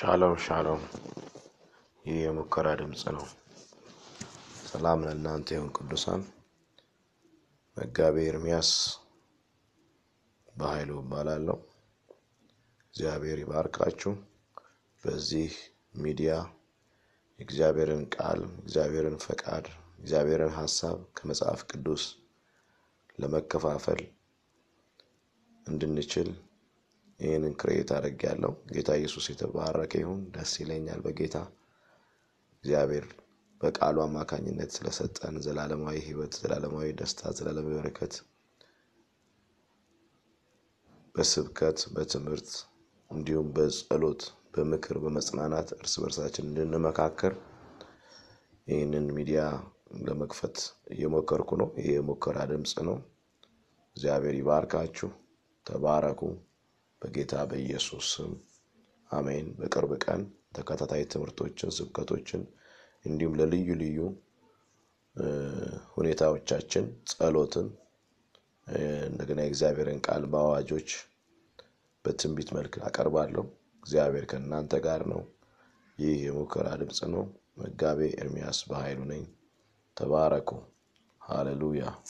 ሻሎም ሻሎም ይህ የሙከራ ድምጽ ነው። ሰላም ለእናንተ ይሁን ቅዱሳን። መጋቤ ኤርምያስ በኃይሉ እባላለሁ። እግዚአብሔር ይባርካችሁ። በዚህ ሚዲያ እግዚአብሔርን ቃል፣ እግዚአብሔርን ፈቃድ፣ እግዚአብሔርን ሐሳብ ከመጽሐፍ ቅዱስ ለመከፋፈል እንድንችል ይህንን ክሬት አድርጌያለሁ። ጌታ ኢየሱስ የተባረከ ይሁን። ደስ ይለኛል በጌታ እግዚአብሔር በቃሉ አማካኝነት ስለሰጠን ዘላለማዊ ሕይወት፣ ዘላለማዊ ደስታ፣ ዘላለማዊ በረከት በስብከት በትምህርት እንዲሁም በጸሎት በምክር በመጽናናት እርስ በርሳችን እንድንመካከር ይህንን ሚዲያ ለመክፈት እየሞከርኩ ነው። ይሄ የሙከራ ድምጽ ነው። እግዚአብሔር ይባርካችሁ። ተባረኩ በጌታ በኢየሱስ ስም አሜን። በቅርብ ቀን ተከታታይ ትምህርቶችን፣ ስብከቶችን እንዲሁም ለልዩ ልዩ ሁኔታዎቻችን ጸሎትን እንደገና የእግዚአብሔርን ቃል በአዋጆች በትንቢት መልክ አቀርባለሁ። እግዚአብሔር ከእናንተ ጋር ነው። ይህ የሙከራ ድምጽ ነው። መጋቤ ኤርምያስ በኃይሉ ነኝ። ተባረኩ። ሃሌሉያ።